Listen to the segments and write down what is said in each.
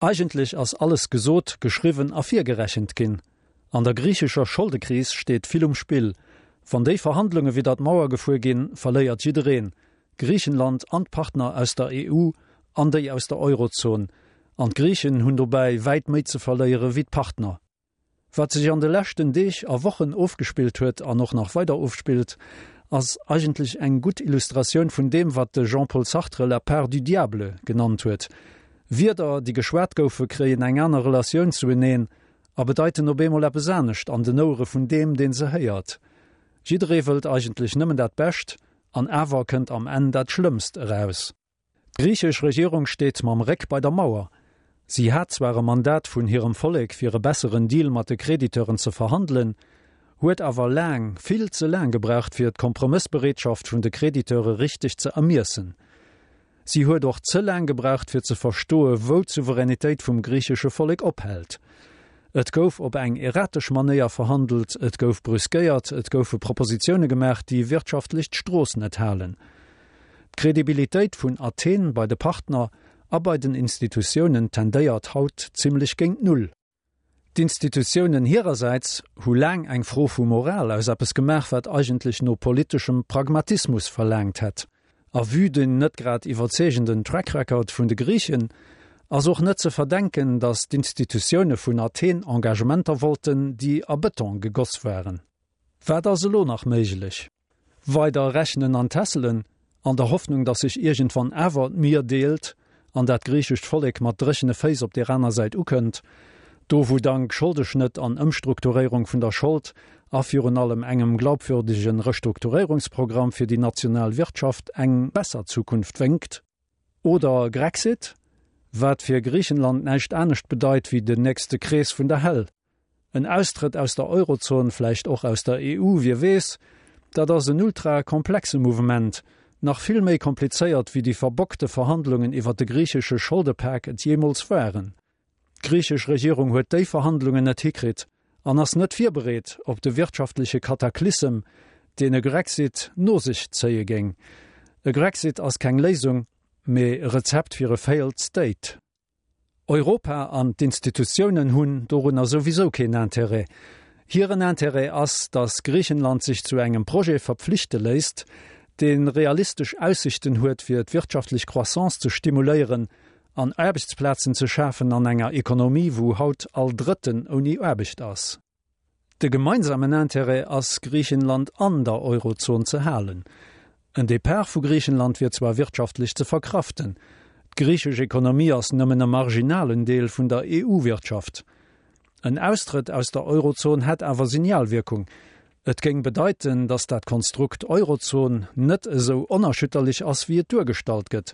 Eigentlech ass alles gesot, geschriwwen a virgerechent ginn. An der griichescher Scholdekris steet vill um Spill. Wann déi Verhandlunge widder d'Mauer gefuer ginn, verléiert jiddereen, Griichenland an d'Partner aus der EU an déi aus der Eurozon. An d'Griichen hunn dobäi wäit méi ze verléiere wéi d'Partner. Wat sech an de leschten Deeg a Wochen ofgespillt huet an och nach weider ofspillt, ass eigentlech eng gutt Illustratioun vun deem, wat de Jean-Paul Sartre la part du diable genannt huet. Wierder, déi geschwat goufe, kréien eng aner Relatioun zueneen a bedeiten op eemol eppes anescht an den Ouere vun deem, dee se héiert. Jidderee wëllt eigentlech nëmmen dat Bescht, an awer kënnt am Enn dat Schlëmmst eraus. D'griichesch Regierung steet mam Réck bei der Mauer. Si hat zwar e Mandat vun hirem Vollek fir e besseren Deal mat de Crediteuren ze verhandelen, huet awer laang, vill ze laang gebraucht fir d'Kompromëssbereetschaft vun de Crediteure richteg ze ermiessen. Si huet och ze laang gebraucht fir ze verstoe wou d'Souveränitéit vum griichesche Vollek ophält. Et gouf op eng erratesch Manéier verhandelt, et gouf brüskéiert, et goufe Propositioune gemaach déi wirtschaftlech d'Strooss net halen. D'Credibilitéit vun Athen bei de Partner a bei den Institutiounen tendéiert haut zimlech géint Null. D'Institutiounen hirersäits hu laang eng Fro vu Moral aus eppes gemaach, wat eigentlech no politeschem Pragmatismus verlaangt hätt. A vue den net grad iwwerzeegenden Track Record vun de Griichen ass och net ze verdenken, datt d'Institutioune vun Athen Engagementer wollten, déi a Bëton gegoss waren. Wat ass elo nach méiglech? Weider rechnen an tässelen, an der Hoffnung, datt sech iergendwann awer d'Mier deelt an dat griichescht Vollek mat dréchene Féiss op deer aner Säit ukënnt, do wou dank Scholdeschnëtt an Ëmstrukturéierung vun der Schold a virun allem engem glaubwürdege Restrukturéierungsprogramm fir déi national Wirtschaft eng besser Zukunft wénkt. Oder Grexit, wat fir Griichenland näischt anescht bedeit wéi den nächste Krees vun der Hell. En Austrëtt aus der Eurozon, vläicht och aus der EU, wie weess, dat ass en ultra komplexe Mouvement, nach vill méi komplizéiert wéi déi verbockte Verhandlungen iwwer de griichesche Scholdepak et jeemools waren. D'griichesch Regierung huet déi Verhandlungen net hikritt an ass net virbereet op de wirtschaftleche Kataklysem, deen e Grexit no sech zéie géing. E Grexit ass keng Léisung, mee e Rezept fir e failed state. Europa an d'Institutiounen hunn dorunner souwisou keen Intérêt. Hiren Intérêt ass, datt Griichenland sech zu engem Projet verpflichte léisst, dee realistesch Aussichten huet fir d'wirtschaftlech Croissance ze stimuléieren an Aarbechtsplazen ze schafen an enger Ekonomie wou haut all Drëtten ouni Aarbecht ass. De gemeinsamen Intérêt ass, Griichenland an der Eurozon ze halen. En Depart vu Griichenland wier zwar wirtschaftlech ze verkraften, d'griichesch Ekonomie ass nëmmen e marginalen Deel vun der EU-Wirtschaft. En Austrëtt aus der Eurozon hätt awer Signalwierkung. Et géing bedeiten, datt dat Konstrukt Eurozon net esou onerschütterlech ass, wéi et duergestallt gëtt,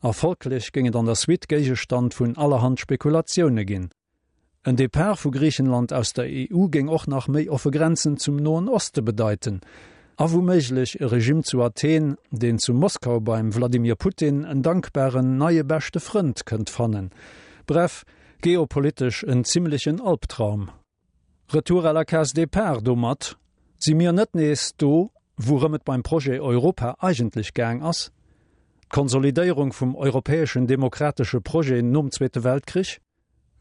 a folglech géing et an der Suite Géigestand vun allerhand Spekulatioune ginn. En Depart vu Griichenland aus der EU géing och nach méi offe Grenzen zum Noen Oste bedeiten a wouméiglech e Regimm zu Athen, deen zu Moskau beim Wladimir Putin en dankbaren neie beschte Frënd kënnt fannen. Bref, geopolitesch en zimmlechen Albtraum. Retour à la case départ, domat si mir net nees do, wourëm et beim Projet Europa eigentlech gaang ass, d'Konsolidéierung vum europäeschen demokratesche Projet nom Zweete Weltkrich?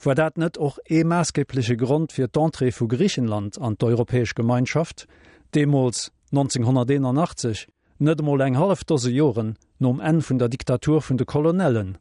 War dat net och ee maassgebleche Grond fir d'Entrée vu Griichenland an d'Europäesch Gemeinschaft, deemools 1981, net emol eng hallef Dose Joren nom Enn vun der Diktatur vun de Colonellen?